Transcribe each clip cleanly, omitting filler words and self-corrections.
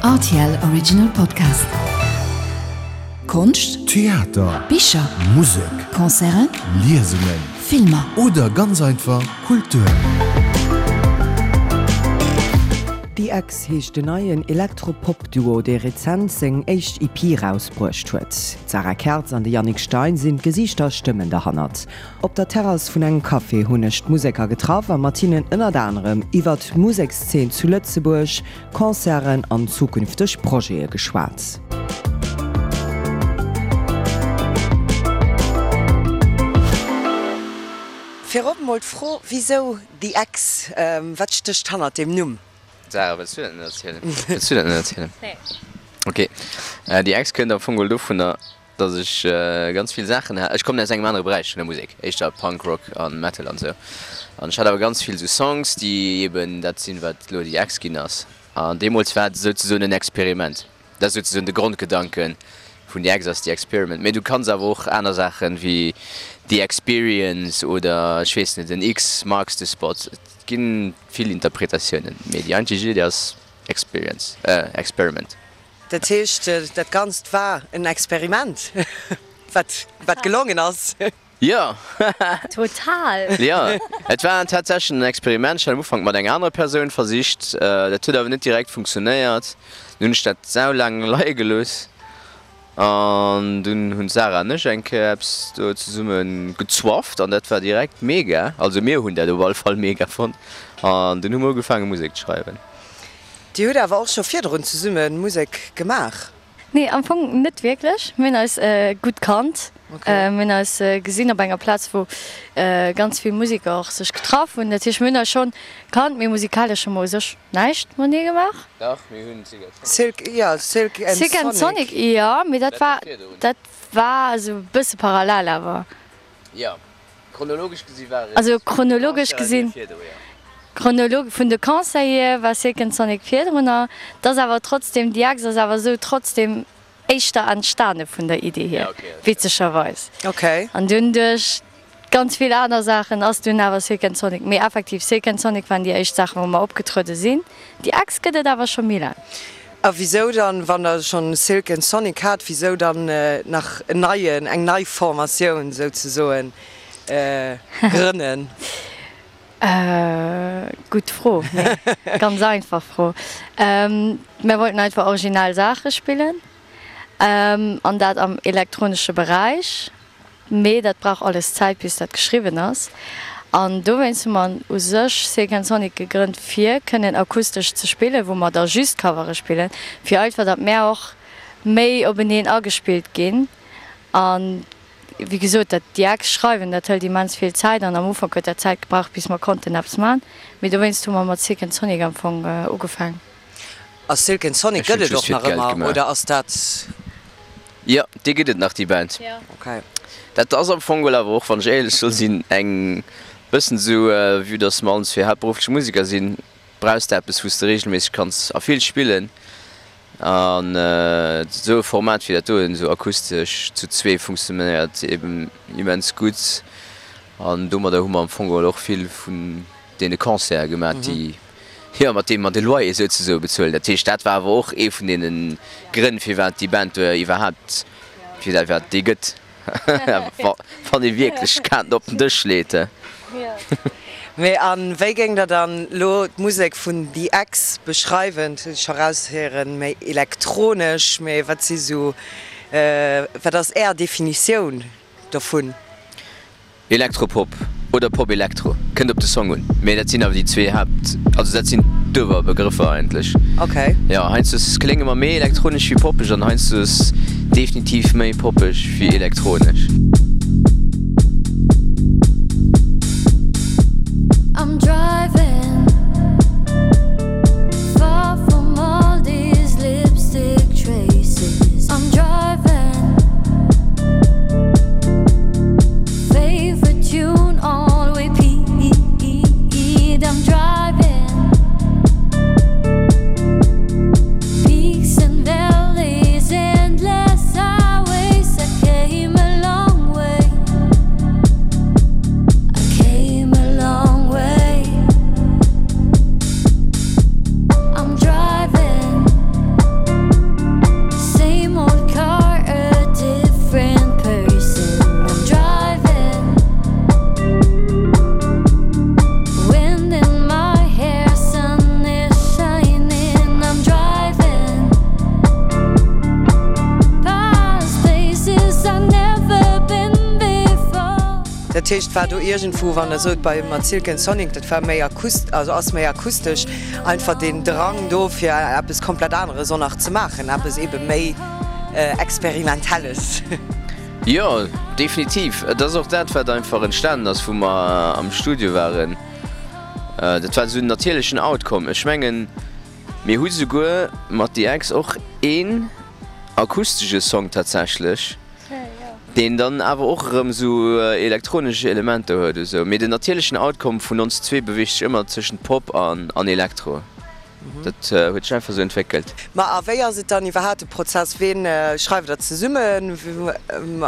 Rtl Original Podcast. Konscht, Theater, Bicher, Musek, Concerten, Liesungen Filmer. Oder ganz einfach Kultur. The Ex heescht den neien Elektro-Pop-Duo, dee rezent seng éischt EP rausbruecht huet. D'Sarah Kertz an de Yannick Stein sinn d'Gesiichter a Stëmmen derhannert. Op der Terrass vun engem Café hunn ech d'Museker getraff a mat hinnen ënnert anerem iwwert d'Musekszeen zu Lëtzebuerg, Concerten an zukünfteg Projete geschwat. Virop mol d'Fro, Wisou The Ex? Wat stécht hannert deem Numm? Sarah, wëlls du dat net erzielen? Wëlls du dat net erzielen? Nee. Ok. The Ex kënnt am Fong geholl dovunner, dass ech ganz vill Saachen hat. Ech kommen aus engem anere Beräich vun der Musek, éischter Punk Rock a Metal an esou. An ech hat awer ganz vill esou Songs, déi eben dat sinn, wat elo The Ex ginn ass. An deemools war et souzesoen en Experiment. Dat ass souzesoen de Grondgedanke vun The Ex ass The Experiment. Mee du kanns awer och aner Saachen wéi The Experience oder ech weess net, en X marks the spot. Et gi vill Interpretatiounen, mee déi eigentlech Iddi ass Experience, Experiment. Dat heescht, dat Ganzt war en Experiment, wat wat gelongen ass? Jo! Total! Jo, et war tatsächlech en Experiment. Ech hat am Ufank mat enger anerer Persoun versicht. Dat huet awer net direkt funktionéiert. Dunn hunn ech dat saulaang leie gelooss an dunn hunn d'Sarah an ech eng Kéier eppes do zesumme gezwafft an dat war direkt mega. Also mir hunn dat op alle Fall mega fonnt an dunn hu mer ugefaange Musek ze schreiwen. Dir hutt awer och scho virdrun zesumme Musek gemaach? Nee, am Fong net wierklech. Mir hunn eis gutt kannt. Mir hunn eis gesinn op enger Plaz, wou ganz vill Museker och sech getraff hunn. Dat heescht, mir hunn eis schonn kannt, mee musikalesch hu mer u sech näischt matenee gemaach. Dach, mir hunn Silk and Sonic. Silk, jo, Silk and Sonic. Silk and Sonic, jo, mee dat war, dat war esou e bësse parallel awer. Jo, Chronologesch gesi war et. Also chronologesch gesinn, chronolog vun de Concerten hier war Silk and Sonic virdrunner. Et ass awer trotzdem, déi Ex ass awer esou trotzdem éischter entstane vun der Idee hier, witzegerweis. An dunn duerch ganz vill aner Saachen ass dunn awer Silk and Sonic. Mee effektiv, Silk and Sonic waren déi éischt Saachen, wou mer opgetruede sinn. Déi Ex gëtt et awer scho méi laang. A wisou dann, wann der schonn Silk and Sonic hat, wisou dann nach en neien, eng nei Formatioun souzesoen grënnen? Gutt Fro, mee ganz einfach Fro. Mir wollten einfach originell Saache spillen an dat am elektronesche Beräich. Mee dat brauch alles Zäit bis dat geschriwwen ass. An dowéinst hu mer u sech Silk and Sonic gegrënnt fir kënnen akustesch ze spillen, wou mer da just Covere spillen, fir einfach datt mär och méi openeen agespillt ginn. An wéi gesot, dat déi Ex schreiwen, dat hëlt immens vill Zäit an am Ufank huet dat Zäit gebraucht bis mer konnten eppes man. Mee dowéinst hu mer mat Silk and Sonic am Fong ugefaang. A Silk and Sonic Ech hunn gëtt et just och fir nach d'Geld ëmmer gemaach. oder ass dat? Jo, déi gëtt et nach, déi Band. Okay. Dat ass am Fong geholl awer och, wann ech éierlech soll sinn, eng bëssen esou, vue dass mer allen zwee haaptberufflech Museker sinn, brauchs de eppes, wou s de reegelméisseg kanns a vill spillen. An esou e Format wéi dat doen, esou akustesch zu zwee, funktionéiert eben immens gutt. An domadder hu mer am Fong geholl och vill vun deene Concerte gemaach, déi, jo, mat deem mer de Loyer souzesoe bezuelen. Dat heescht, dat war awer och ee vun deene Grënn, firwat déi Band do iwwerhaapt, firwat déi gëtt, wann ee wierklech d'Kaarten op den Dësch leet. Mee a wéi géing Der dann elo d'Musek vun The Ex beschreiwen? Dat hunn ech scho raushéieren, méi elektronesch, mee wat si sou, wat ass Är Definitioun dovun? Elektropop oder Pop-Elektro, kënnt op de Song un, mee dat sinn awer déi zwee Haapt, also dat sinn d'Uewerbegrëffer eigentlech. Ok. Jo, heiansdo klénge mer méi elektronesch wéi poppeg an heiansdo definitiv méi poppeg wéi elektronesch. Dat heescht, war do iergendwou, wann Der sot, bei mat Silk and Sonic, dat war méi akust-, also ass méi akustesch, einfach deen Drang do, fir eppes komplett aneres och nach ze maachen, eppes eebe méi Experimentelles? Jo, definitiv. Et ass och dat, wat einfach entstanen ass, wou mer am Studio waren. Dat war esou en natierlechen Outcome. Ech mengen, mir hu souguer mat The Ex och een akustesche Song tatsächlech, deen dann awer och erëm esou elektronesch Elementer huet esou. Mee den natierlechen Outcome vun ons zwee beweegt sech ëmmer tëschent Pop an Elektro. Dat huet sech einfach esou entwéckelt. Ma a wéi ass et dann iwwerhaapt de Prozess? Ween schreift der zesummen?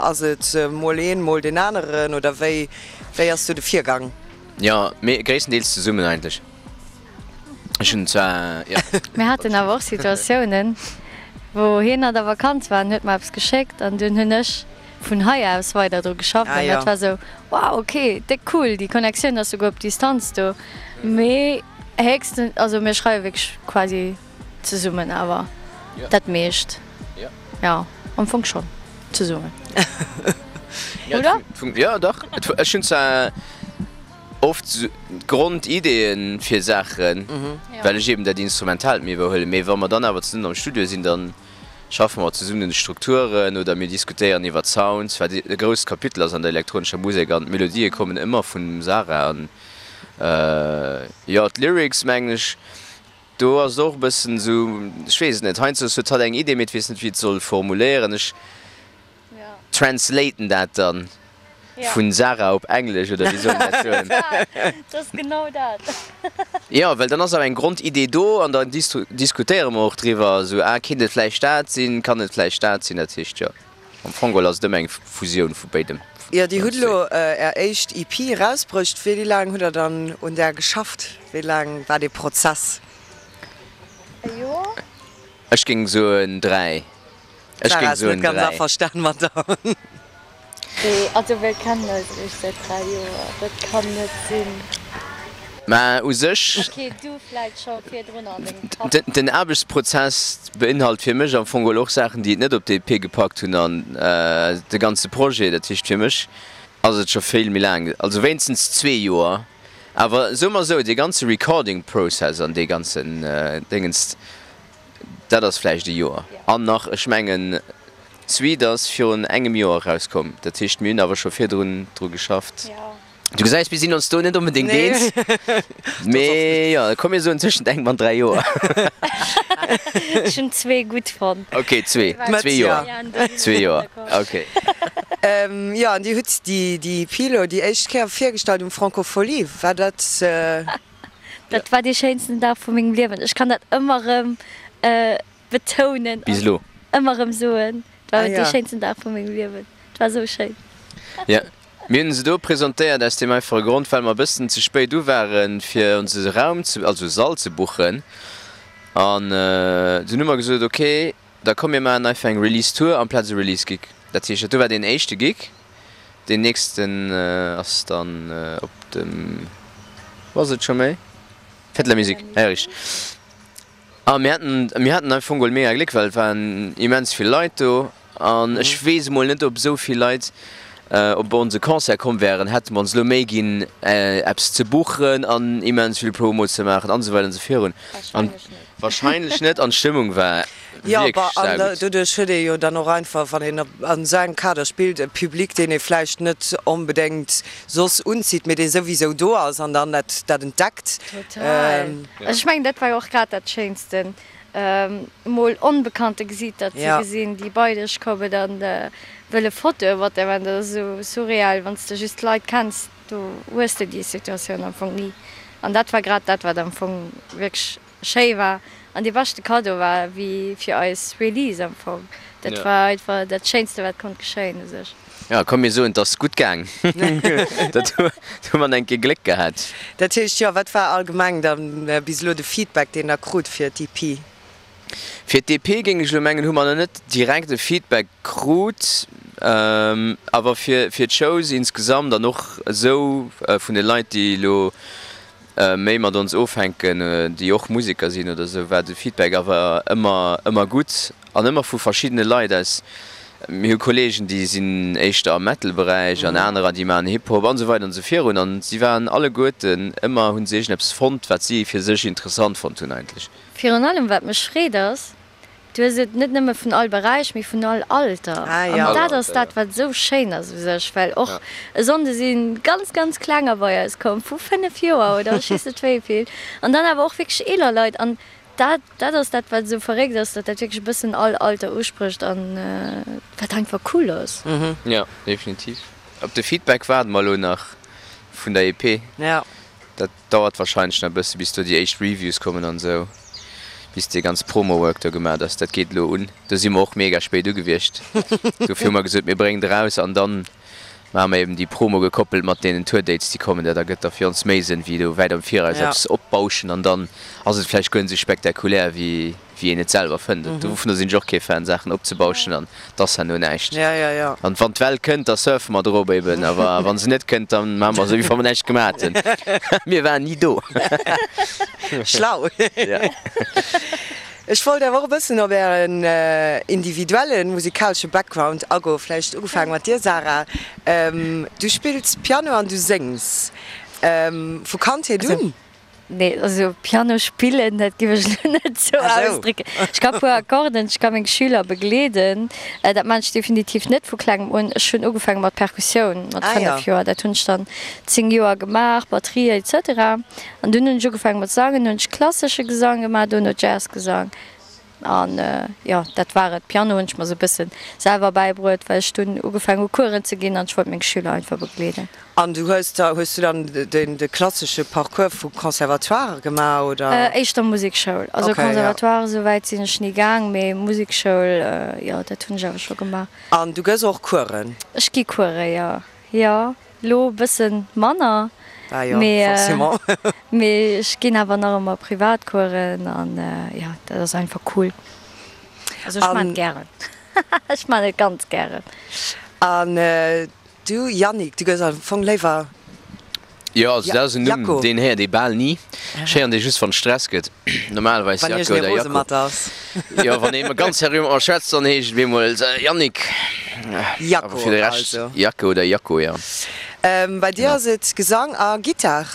Ass et mol een, mol deen aneren oder wéi wéi ass do de Virgang? Jo, mee gréisstendeels zesummen eigentlech. Ech hunn zwar, jo. Mir haten awer och Situatiounen, wou hien an der Vakanz war an huet mer eppes geschéckt an dunn hunn ech vun hei aus weider dru geschafft an dat war esou, wow, ok, déck cool, déi Connectioun ass souguer op Distanz do. Mee héchstens, also mir schreiwe wierklech quasi zesummen awer dat meescht, jo, am Fong schonn zesummen, oder? Jo, dach. Ech hunn zwar oft d'Grondideeën fir Saachen, well ech eben dat Instrumentaalt méi iwwerhuelen, mee wa mer dann awer zesummen am Studio sinn, da schaffe mer zesummen un de Strukturen oder mir diskutéieren iwwer d'Sounds, wat e grousst Kapitel ass an der elektronescher Musek an d'Melodië kommen ëmmer vum Sarah an jo d'Lyrics mengen ech, do ass et och e bëssen esou, ech weess et net, heiansdo huet hatt eng Idee, mee et weess net wéi et soll formuléieren. Ech translaten dat dann vun Sarah op Englesch, oder wéi soll een dat soen? Dat ass genau dat. Jo, well dann ass awer eng Grondidee do an dann diskutéiere mer och driwwer, esou, ah, kéint et vläicht dat sinn, kann et vläicht dat sinn? Dat heescht, jo, am Fong geholl ass et ëmmer eng Fusioun vu béidem. Jo, Dir hutt elo Är éischt EP erausbruecht. Wéi laang hutt Der dann un där geschafft? Wéi laang war dee Prozess? E Joer? Ech géing soen 3. Ech Sarah géing ass net soen ganz 3. averstan mat der. Nee, also mir kennen eis eréischt säit 3 Joer, dat kann net sinn. Mä u sech. Ok, du vläit scho virdrun an dengem Kapp. Den Aarbechtsprozess beinhalt fir mech am Fong geholl och Saachen, déi et net op d'EP gepackt hunn an de ganze Projet. Dat heescht fir mech ass et scho vill méi laang, also wéinstens zwee Joer. Awer soe mer esou, dee ganze Recording Process an dee ganzen Déngens, Dat ass vläicht e Joer. An nach, ech mengen, d'Suite ass virun engem Joer erauskomm. Dat heescht, mir hunn awer scho virdrun dru geschafft. Du gesäis, mir sinn ons do net onbedéngt eens. Mee jo, komm mir soen tëschent engem an 3 Joer. Ech hunn zwee gutt fonnt. Ok, zwee. Zwee Joer. Zwee Joer, ok. Jo, an Dir hutt déi EP elo déi éischt Kéier virgestallt um Francofolies. War dat. Dat war dee schéinsten Dag vu mengem Liewen. Ech kann dat ëmmer erëm betounen Bis elo. an ëmmer erëm soen. Et war dee schéinsten Dag vu mengem Liewen. Et war esou schéin. Jo, mir hunn se do presentéiert aus deem einfache Grond, well mer e bëssen ze spéit u waren, fir ons e Raum ze, also e Sall ze buchen. An dunn hu mer gesot, ok, da komm mir maachen einfach eng Release Tour amplaz e Release Gig. Dat heescht, dat do war deen éischte Gig. Deen nächsten ass dann op dem, wou ass et scho méi? Fête de la Musique, ah jo richteg. A mir haten, mir haten am Fong geholl mega Gléck, well et waren immens vill Leit do an ech weess emol net, ob esou vill Leit op onse Concert komm wären, hätte mer ons elo Méi ginn eppes ze buchen an immens vill Promo ze maachen an esou weider an esou virun. Wahrscheinlech net an d'Stëmmung war Jo, wierklech bah, an saugutt. doduerch huet ee jo dann och einfach, wann een an esou engem Kader spillt, e Public, deen ee vläicht net onbedéngt soss unzitt, mee dee souwisou do ass an dann dat dat entdeckt. Total. Also ech mengen, dat war jo och grad dat Schéinsten, emol onbekannte Gesiiter ze gesinn, déi bei dech kommen an wëlle Fotoe mat der maachen. Dat ass esou surreal, wann s de just d'Leit kenns, do hues de déi Situatioun am Fong ni. An dat war grad dat, wat am Fong wierklech schéi war an dee beschte Cadeau war wéi fir eis Release am Fong. Dat war einfach dat Schéinste wat konnt geschéien u sech. Jo, komm mir soen, 't ass gutt gaang. Dat hu mer eng Kéier Gléck gehat. Dat heescht, jo, wat war allgemeng dann bis elo de Feedback deen der krut fir d'EP? Fir d'EP géing ech elo mengen, hu mer nach net direkt e Feedback krut, awer fir d'Shows insgesamt an och esou vun de Leit déi elo méi mat ons ofhänken, déi och Museker sinn oder esou, war de Feedback awer ëmmer, ëmmer gutt an ëmmer vu verschiddene Leit aus. Mir hu Kolleegen, déi sinn éischter am Metal-Beräich an anerer, déi maachen Hip-Hop an esou weider an esou virun. An si waren alleguerten ëmmer, hu se iergendeppes fonnt, wat si fir sech interessant fonnt hunn eigentlech. Virun allem wat mech freet ass, du hues et net nëmme vun all Beräich, mee vun all Alter. An dat ass dat, wat esou schéin ass u sech, well och e Sonnde si ganz, ganz Klenger bei eis komm, vu 5 Joer oder ech weess net wéi vill, an dann awer och wierklech eeler Leit. An Dat, dat ass dat, wat esou verréckt ass, datt dat wierklech e bëssen all Alter usprécht an wat einfach cool ass. Jo, definitiv. Op de Feedback waarde mer elo nach vun der EP. Dat dauert warscheinlech nach e bësse bis do déi éischt Reviews kommen an esou, bis dee ganz Promo-Work do gemaat ass. Dat geet elo un. Do si mer och mega spéit ugewiescht. Dofir hu mer gesot, mir bréngen et eraus an dann Maache mer eben déi Promo gekoppelt mat deenen Tour-Dates, déi kommen. Dat ergëtt da fir ons méi Sënn, wéi do wäit am Viraus eppes opbauschen an dann ass et vläicht guer net esou spektakulär, wéi wéi een et selwer fënnt. Dovunner sinn ech och kee Fan, Saachen opzebauschen an et ass herno näischt. An wann d'Well kënnt, da surfe mer drop eben, awer wa se net kënnt, da maache mer esou, wéi wa mer näischt gemaach hätten. Mir waren ni do. Schlau. Ech wollt awer och e bëssen op Ären individuelle musikalesche Background agoen. Vläicht ugefaange mat dir, Sarah. Du spills Piano an du séngs. Vu Kandheet un? Nee, also Piano spillen, dat géif ech elo net esou ausdrécken. Ech ka puer Akkorden, ech ka meng Schüler begleeden. Dat maan ech definitiv net vu klengem un. Ech hunn ugefaange mat Perkussioun mat 5 Joer. Dat hunn ech dann 10 Joer gemaach, Batterie etc. An dunn hunn ech ugefaange mat sangen, hunn ech klassesche Gesang gemaach, duerno Jazzgesang an jo, dat war et. Piano hunn ech mer sou e bësse selwer bäibruet, well ech dunn ugefaangen hu Coursen ze ginn an ech wollt meng Schüler einfach begleeden. An du hues da, hues du dann den de klassesche Parcours vu Conservatoire gemaach oder? Éischter Musekschoul, also Conservatoire esou wäit sinn ech ni gaang, mee Musekschoul, jo, dat hunn ech awer scho gemaach. An du gëss och Coursen? Ech gi Coursen, jo, jo. Lo e bëssen manner, mee ech ginn awer nach ëmmer Privatcoursen an jo, dat ass einfach cool. Also ech maan et gären, ech maan et ganz gären. An du Yannick, du gëss am Fong léiwer Jo, also dat ass en Numm, deen héiert ee bal ni. Ech héieren dee just, wann et Stress gëtt. Normalerweis Wann Jacko iergendee oder rose Jacko. mat ass. Jo, wann ee ganz seriö mat mer schwätzt, dann heescht et bemol Yannick. Awer Jacko fir de Rescht also. Jacko oder Jacko, jo. Bei dir Genau. ass et Gesang a Gittar.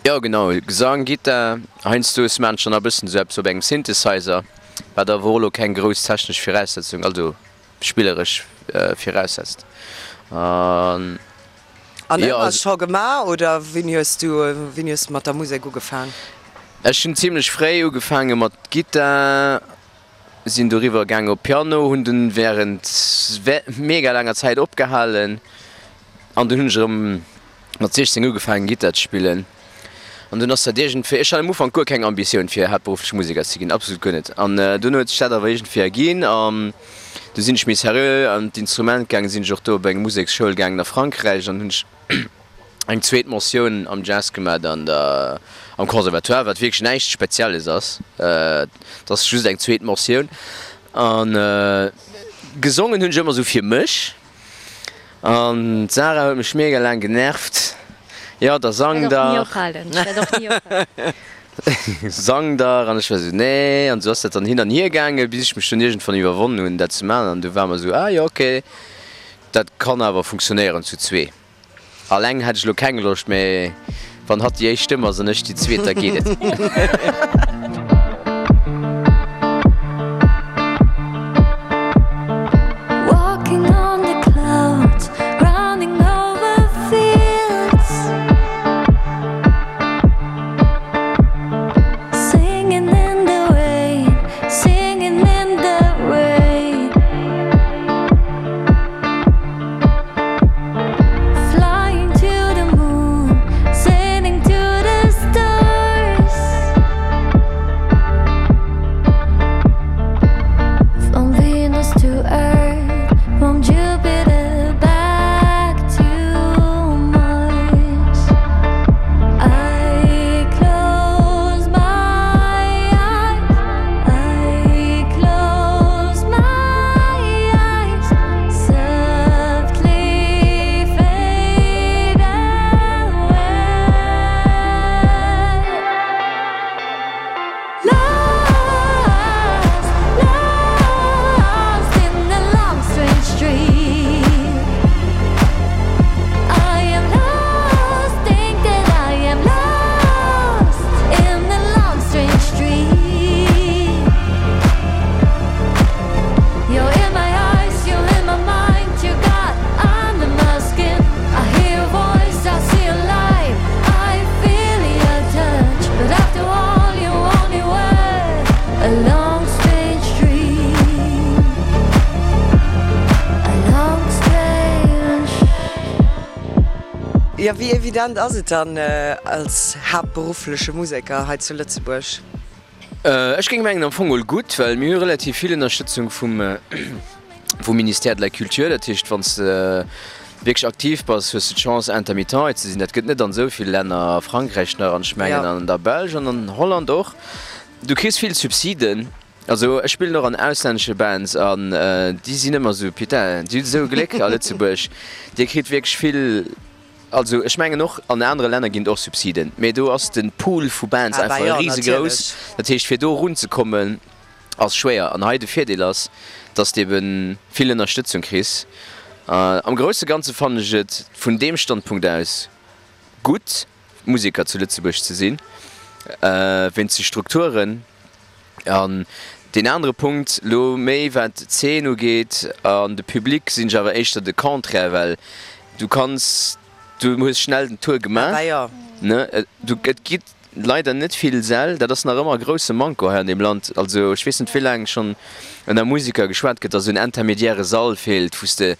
Jo, genau, Gesang, Gittar. Heiansdo maan ech dann nach e bëssen esou eppes op engem Synthesizer, wat awer och elo keng grouss technesch Viraussetzung, also spilleresch viraussetzt. An. An ëmmer scho gemaach oder wéini hues du wéini hues du mat der Musek ugefaang? Ech hunn zimlech fréi ugefaange mat Gittar, sinn doriwwer gaangen op Piano, hunn dunn wärend mega laanger Zäit opgehalen an dunn hunn ech erëm mat 16 ugefaangen Gittar ze spillen. An dunn ass dat iergendwéi, ech hat am Ufank guer keng Ambitioun fir haaptberufflech Museker ze ginn, absolut guer net. An dunn huet sech dat awer iergendwéi erginn an du sinn ech méi seriö an d'Instrument gaangen, sinn ech och do op eng Museksschoul gaangen a Frankräich an hunn ech eng zweet Mentioun am Jazz gemat an der am Conservatoire, wat wierklech näischt Spezielles ass, et ass just eng zweet Mentioun. An gesongen hunn ech ëmmer esou fir mech. An d'Sarah huet mech mega laang genervt, jo da sang dach, sang dach, an ech war esou nee, an esou ass dat dann hin an hier gaangen, bis ech mech dunn iergendwann iwwerwonnen hunn dat ze maachen, an du war mer esou, ah jo ok, dat kann awer funktionéieren zu zwee. Alleng hätt ech elo keng Loscht, mee wann hatt déi éischt Stëmm ass an ech déi zweet, da geet et. Jo, wéi evident ass et dann als haaptberuffleche Museker hei zu Lëtzebuerg? Ech géing mengen am Fong mol gutt, well mir hu relativ vill Ënnerstëtzung vum vum Ministère de la Culture. Dat heescht, wann s de wierklech aktiv bass, hues de d'Chance intermittent ze sinn. Dat gëtt net an esou vill Länner, a Frankräich nach an ech mengen an der Belsch an an Holland och. Du kriss vill Subsiden. Also ech spillen och an auslännesche Bands an déi sinn ëmmer esou, putain, déi hunn esou Gléck a Lëtzebuerg, Dir kritt wierklech vill. Also ech mengen och an anere Länner ginn et och Subsiden, mee do ass de Pool vu Bands Ah bah einfach jo, risegrouss. natierlech. Dat heescht fir do erunzekommen ass schwéier. An hei de Virdeel ass, dass de ebe vill Ënnerstëtzung kriss. Am grousse Ganze fannen ech et vun deem Standpunkt aus gutt Museker zu Lëtzebuerg ze sinn, wéinst de Strukturen. An deen anere Punkt, elo méi wat d'Zeen ugeet an de Public, sinn ech awer éischter de Contraire, well du kanns, du hues schnell den Tour gemaach, ne, du, et gi leider net vill Säll, dat ass nach ëmmer e grousse Manko hei an deem Land. Also ech weess net wéi laang schonn ënner Museker geschwat gëtt, datt esou en intermediäre Sall feelt, wou s de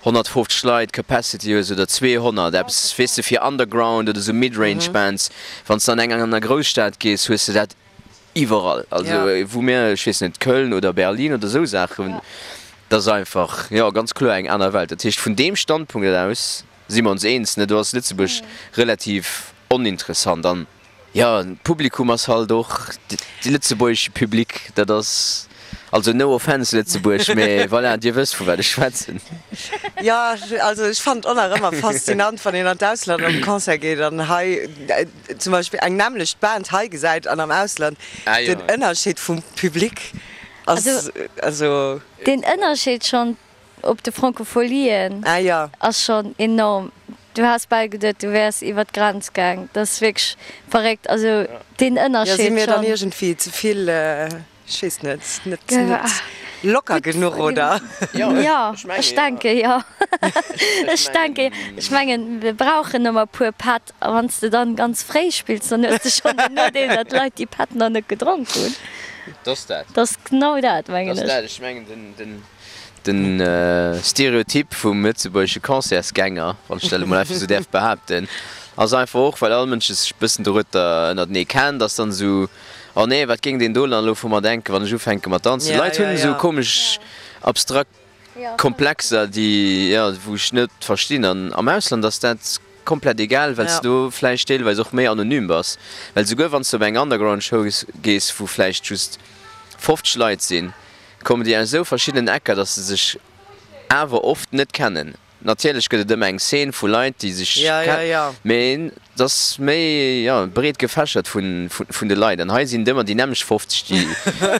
150 Leit Capacity hues oder 200, eppes, weess de, fir Underground oder esou Mid-Range Bands. Wann s de an eng aner Grousstad gees, hues de dat Iwwerall, also wou mir, ech weess net, Köln oder Berlin oder esou Saachen, dat ass einfach, jo, ganz kloer eng aner Welt. Dat heescht, vun deem Standpunkt aus si mer ons eens, ne, do ass Lëtzebuerg relativ oninteressant. An, jo, d'Publikum ass halt och de lëtzebuergesche Public, dat ass, also no offense Lëtzebuerg, mä voilà, Dir wësst vu wat ech schwätzen. Jo, also ech fannen et och nach ëmmer faszinant, wann een an d'Ausland op e Concert geet an hei, zum Beispill eng nämmlecht Band hei gesäit an am Ausland, den Ënnerscheed vum Public ass also. Den Ënnerscheed schonn op de Francofolien ass schonn enorm. Du has bal geduet, du wäers iwwer d'Grenz gaang. Dat ass wierklech verréckt. Also deen Ënnerscheed schonn. Jo, si mir dann iergendwéi ze vill. Ech weess net, net locker genuch, oder? Jo, ech denke jo. Ech denke jo. Ech mengen, mir brauchen ëmmer e puer Pätt. A wann s de dann ganz fréi spills, dann hues de schonn den Nodeel, datt d'Leit déi Pätt nach net gedronk hunn. Dat ass dat. Dat ass genau dat, mengen ech. Dat ass dat. Ech mengen, den. De Stereotyp vum lëtzebuergesche Concertsgänger, wann ech dat elo mol einfach esou däerf behaapten, ass einfach och, well all Mënsch sech e bëssen dorueter ënnertenee kennt, ass dann esou, Oh nee, wat géing deen do dann elo vu mer denken, wann ech ufänke mat danzen? D'Leit hunn esou komesch abstrakt Komplexer, déi, jo, wou ech net verstinn. An am Ausland ass dat komplett egal, well s de do vläicht deelweis och méi anonym bass. Well souguer wann s de op eng Underground-Show gees, wou vläicht just 50 Leit sinn, kommen déi aus esou verschiddenen Ecker, dass se sech awer oft net kennen. Natierlech gëtt et ëmmer eng Szene vu Leit, déi sech kennen, mee et ass méi, jo, breet gefächert vun de Leit. An hei sinn et ëmmer déi nämmlecht 50,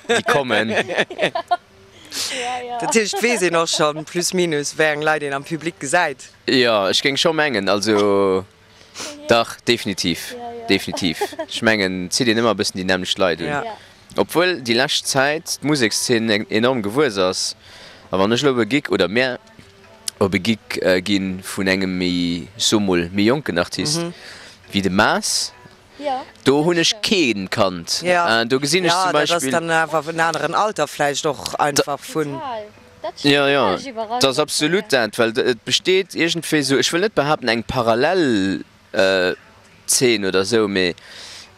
déi kommen. Dat heescht, et weess een och schonn plus minus, wéi eng Leit een am Public gesäit? Jo, ech géing scho mengen, also Dach, definitiv, definitiv. Ech mengen, et zitt een ëmmer e bëssen déi nämmlecht Leit un. Obwuel déi lescht Zäit d'Musekszeen enorm gewuess ass. A wann ech elo op e Gig, oder mär op e Gig ginn vun engem méi, ech soe mol, méi jonken Artist wéi de Maas, do hunn ech kee kannt. Do gesinn ech zum Beispill. Jo, dat ass Beispill. dann awer en aneren Alter vläicht och einfach vun. Jo, jo, et ass absolut dat, well et besteet iergendwéi esou, ech wëll net behaapten eng parallel Zeen oder esou, mee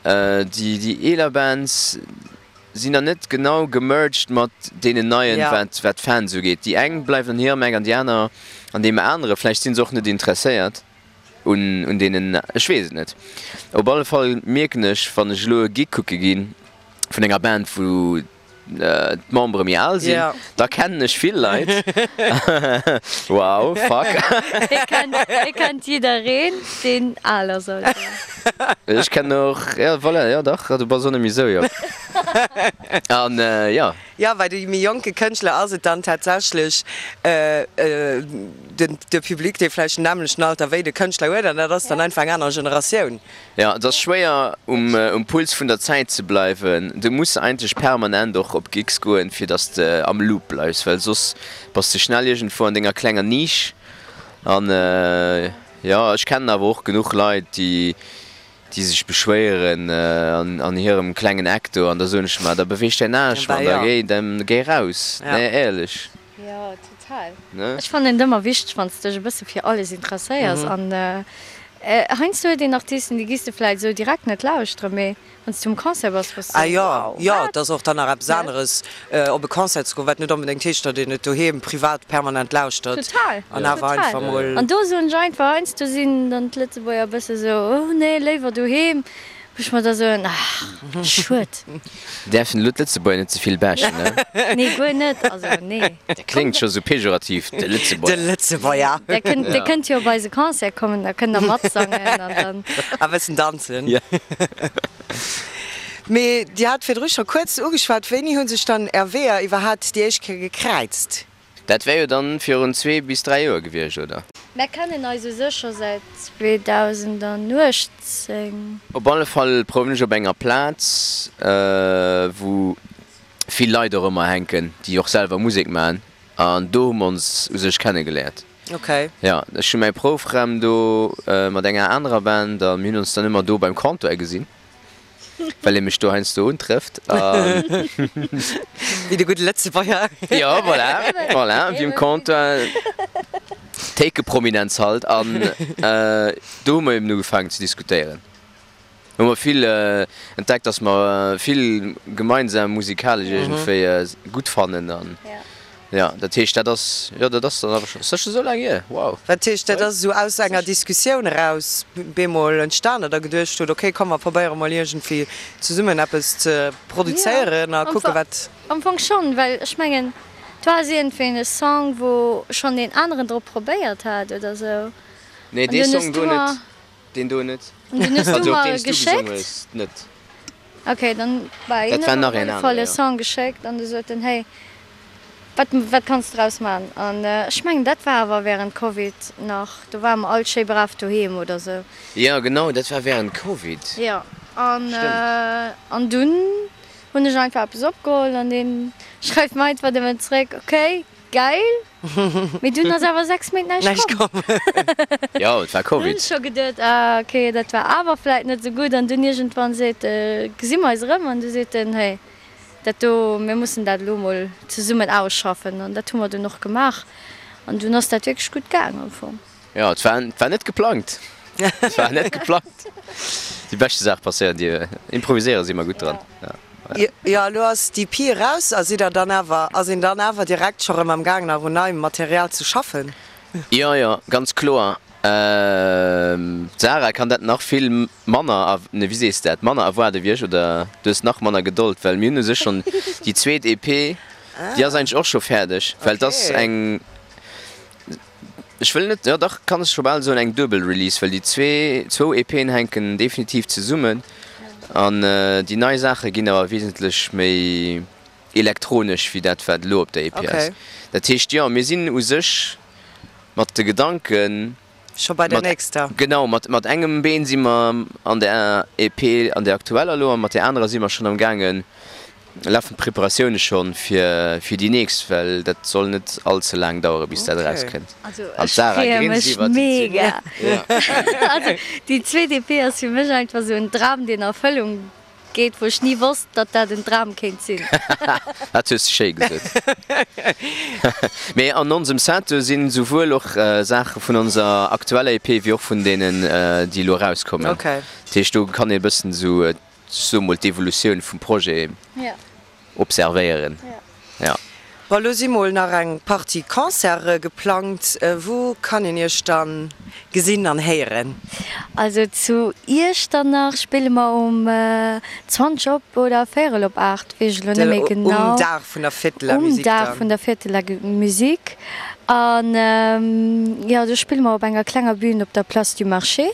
déi déi eeler Bands sinn dann net genau gemerged mat deenen neien, wat wat d'Fans ugeet. Déi eng bleiwen an hirem Eck an déi aner an deem anere. Vläicht si se och net interesséiert un un deenen, ech weess et net. Op alle Fall mierken ech, wann ech elo e Gig kucke ginn vun enger Band, wou d'Membere méi al sinn, da kennen ech vill Leit. Wow, fuck. Hie kennt jiddereen, deen al ass, also. Ech kennen och, jo, voilà, jo dach, du bass och net méi esou jonk. An jo. Jo, bei de méi jonke Kënschtler ass et dann tatsächlech den, de Public, dee vläicht den nämmlechten Alter wéi de Kënschtler huet, an dat ass dann einfach eng aner Generatioun. Jo, et ass schwéier um Puls vun der Zäit ze bleiwen. Du muss eigentlech permanent och op Gigs goen, fir dass de am Loop bleifs, well soss bass de schnell iergendwou an denger klenger Nisch. An jo, ech kennen awer och genuch Leit, déi déi sech beschwéieren an hirem klengen Eck do. An da soen ech, ma da beweeg däin Aarsch, Mann, da géi, da géi raus. Nee, éierlech. Jo, total. Ech fannen et ëmmer wichteg, wann s de dech e bësse fir alles interesséiers an. Heiansdo huet een Artisten, déi giss de vläit esou direkt net lauschteren, mee wann s du um Concert bass, bass du Ah jo, wow, jo, wat? et ass och dann nach eppes aneres op e Concert ze goen, wat net onbedéngt heescht, datt een et doheem privat permanent lauschtert Total, an awer total. einfach mol. An do soen ech einfach, heiansdo sinn dann d'Lëtzebuerger e bësse sou, oh nee, léiwer doheem. Wou ech mer da soen, ach, schued. Däerfen elo d'Lëtzebuerger net ze vill bashen, ne? Nee, guer net, also nee. Dat kléngt scho sou pejorativ, de Lëtzebuerger. De Lëtzebuerger. Der kënnt, der kënnt jo op eise Concert kommen, da kënnt der matsangen an dann. A bëssen danzen. Ja. Mee Dir hat virdru scho kuerz ugeschwat, wéini hu sech dann Är Weeër iwwerhaapt déi éischt Kéier gekräizt? Dat wär jo dann virun zwee bis 3 Joer gewiescht, oder? Mär kennen eis u sech scho säit 2018. Op alle Fall prouwen ech op enger Plaz, wou vill Leit och ëmmer hänken, déi och selwer Musek maachen, an do hu mer ons u sech kennegeléiert. Ok. Jo, ech hu mäi Proufraum do mat enger anerer Band a mir hunn ons dann ëmmer do beim Comptoir gesinn. Well ee mech do heiansdo untrëfft an. Wéi de gudde Lëtzebuerger. Jo, voilà, voilà, wéi um Comptoir, Théikeprominenz halt. An do hu mer eben ugefaangen ze diskutéieren. Hu mer vill entdeckt, dass mer vill gemeinsam musikalesch iergendwéi gutt fannen an. Jo, dat heescht, dat ass, jo, dat ass dann awer scho, ass dat scho sou laang hier? Wow! Dat heescht, dat ass esou aus enger Diskussioun eraus bemol entstan, datt Der geduecht hutt, ok, komm mer probéiere mol iergendwéi zesummen eppes ze produzéieren a kucke wat. Am Fong schonn, well ech mengen, do ass iergendwéi e Song, wou schonn een aneren drop probéiert hat oder sou. Nee, dee Song do net. Deen do net. An dunn hues du Also op mer deen s du gesongen geschéckt. hues net. Ok, dann war een Dat war huet nach mer op een alle Fall anere, e jo. Song geschéckt an du sot en, hey, wat wat kanns de draus man? An ech mengen dat war awer während Covid nach, do ware mer all schéi brav doheem oder sou. Jo, genau, dat war während Covid. Jo, an Stëmmt. an dunn hunn ech einfach eppes opgeholl an deen schreift mer einfach nëmmen zréck, ok, Geil! Mee dunn ass awer 6 Méint näischt komm. Jo, et war Dunn Covid. scho geduet, ah ok, dat war awer vläit net esou gutt. An dunn iergendwann seet, gesi mer eis erëm an du seet en, hey, dat do, mir mussen dat elo mol zesummen ausschaffen. An dat hu mer dunn och gemaach an dunn ass dat wierklech gutt gaang am Fong. Jo, et war, et war net geplangt. Et war net geplangt. Déi beschte Saach passéieren, déi improviséiere si mer gutt dran. Jo, elo ass d'EP eraus. A sidd der dann awer, ass een dann awer direkt scho rëm am Gaang nach un neiem Material ze schaffen? Jo, jo, ganz kloer. D'Sarah kann dat nach vill manner, ne, wéi sees de dat, manner erwaarde wéi ech, oder du hues nach manner Gedold, well mir hunn u sech schonn déi zweet EP, déi ass eigentlech och scho fäerdeg, well et ass eng, Ech wëll net, jo dach, kann ech scho bal soen, eng duebel Release, well déi zwee, zwou EPen hänken definitiv zesummen an déi nei Saache ginn awer wesentlech méi elektronesch wéi dat wat elo op der EP ass. Dat heescht, jo, mir sinn u sech mat de Gedanken, Scho bei der mat, nächster. genau, mat, mat engem Been si mer an der EP, an der aktueller elo, a mat där anerer si mer schonn am gaangen, Lafen d'Preparatioune schonn fir fir déi nächst, well dat soll net all ze laang dauere bis dat eraus kënnt. Also An ech d'Sarah freeë grinst mech iwwert déi mega. Ja. Also déi zweet EP ass fir mech einfach esou en Dram deen a Erfëllung geet, wou ech ni wosst datt dat en Dram kéint sinn. Dat hues de schéi gesot. Mee an onsem Set do sinn souwuel och Saache vun onser aktueller EP wéi och vun deenen déi elo erauskommen. Okay. Dat heescht do kann ee bëssen esou Ech soe mol d'Evolutioun vum Projet observéieren. Jo. Bon, elo si mol nach eng Partie Concerte geplangt. Wou kann een Iech dann gesinn an héieren? Also zu Iechternach spille mer um 20 op oder véierel op 8, weess ech elo net méi genau. Um Dag vun der Fête de la Musique dann. Um Dag vun der Fête de la Musique. An jo, do spille mer op enger klenger Bühn op der Place du Marché.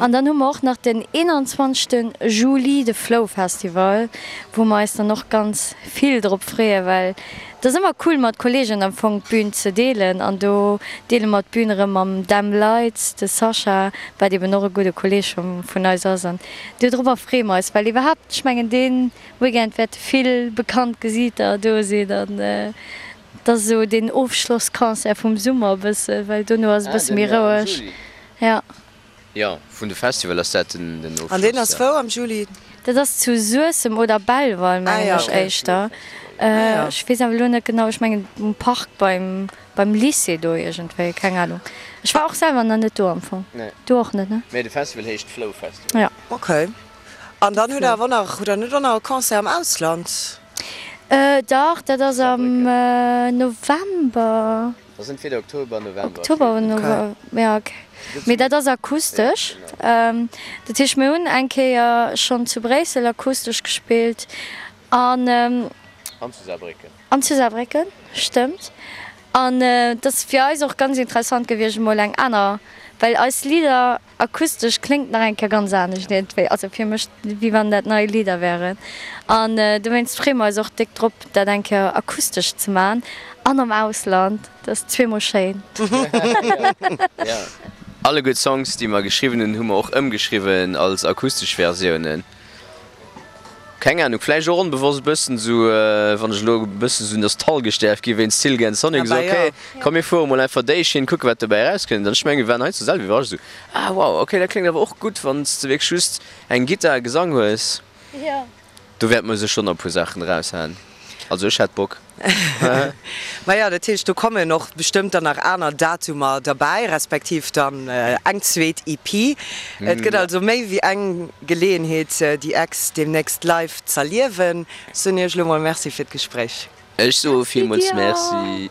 An dann hu mer och nach den 21 Juli de Flow Festival, wou mer eis dann och ganz vill drop freeën, well et ass ëmmer cool mat Kolleegen am Fong d'Bün ze deelen an do deele mer d'Bün erëm mam Dem Lights, de Sascha, wat eben och e gudde Kolleeg vun eis ass an dodrobber freeë mer eis, well iwwerhaapt, ech mengen dee Weekend wäerte vill bekannt Gesiiter do sinn an et ass esou deen Ofschlossconcert vum Summer e bësse, well dono ass e bësse méi roueg. Jo. Jo, vun de Festival ass dat den Ofschloss. An deen ass wou am Juli? Dat ass zu Suessem oder Belval mengen ech éischter. Ech weess awer elo net genau, ech mengen um Park beim beim Lycée do iergendwéi, keng Ahnung. Ech war och selwer nach net do am Fong. Du och net, ne? Mee de Festival heescht Flow Festival. Jo. Ok. An dann hutt der awer och nach, hutt der net och nach e Concert am Ausland? Dach, dat ass am November. Dat ass entweder Oktober, November. Oktober oder November, jo ok. Mee dat ass akustesch. Dat heescht, mir hunn eng Kéier schonn zu Bréissel akustesch gespillt an. An zu Saarbrécken. An zu Saarbrécken, stëmmt. An et ass fir eis och ganz interessant gewiescht, emol eng aner, well eis Lidder Akustesch kléngt nach eng Kéier ganz anescht iergendwéi, also fir mech wéi wann dat nei Lidder wären. An dowéinst freeë mer eis och déck drop dat eng Kéier akustesch ze man an am Ausland, dat ass zweemol schéin. Jo, alleguer d'Songs déi mer geschriwwen hunn, hu mer och ëmgeschriwwen als akustesch Versiounen. Keng Ahnung, vläicht och onbewosst e bëssen esou, wann ech elo e bëssen esou nostalgesch däerf gi wéinst Silk and Sonic, esou ok, komm mir fuere mol einfach déi Schinn, kucke wat dobäi erauskënnt. An ech mengen, mir waren hei zur selwer iwwerrascht, esou, ah wow, ok, dat kléngt awer och gutt, wann s de wierklech just eng Gittar a Gesang hues. Do wäerte mer sécher nach e puer Saachen eraushaen. Also ech hätt Bock. Maja, dat heescht, do kommen och bestëmmt dann nach aner Datumer derbäi, respektiv dann eng zweet EP. Et gëtt also méi wéi eng Geleeënheet, déi Ex deemnächst live z'erliewen. Ech soen Iech elo mol Merci fir d'Gespréich. Ech soe villmools Merci.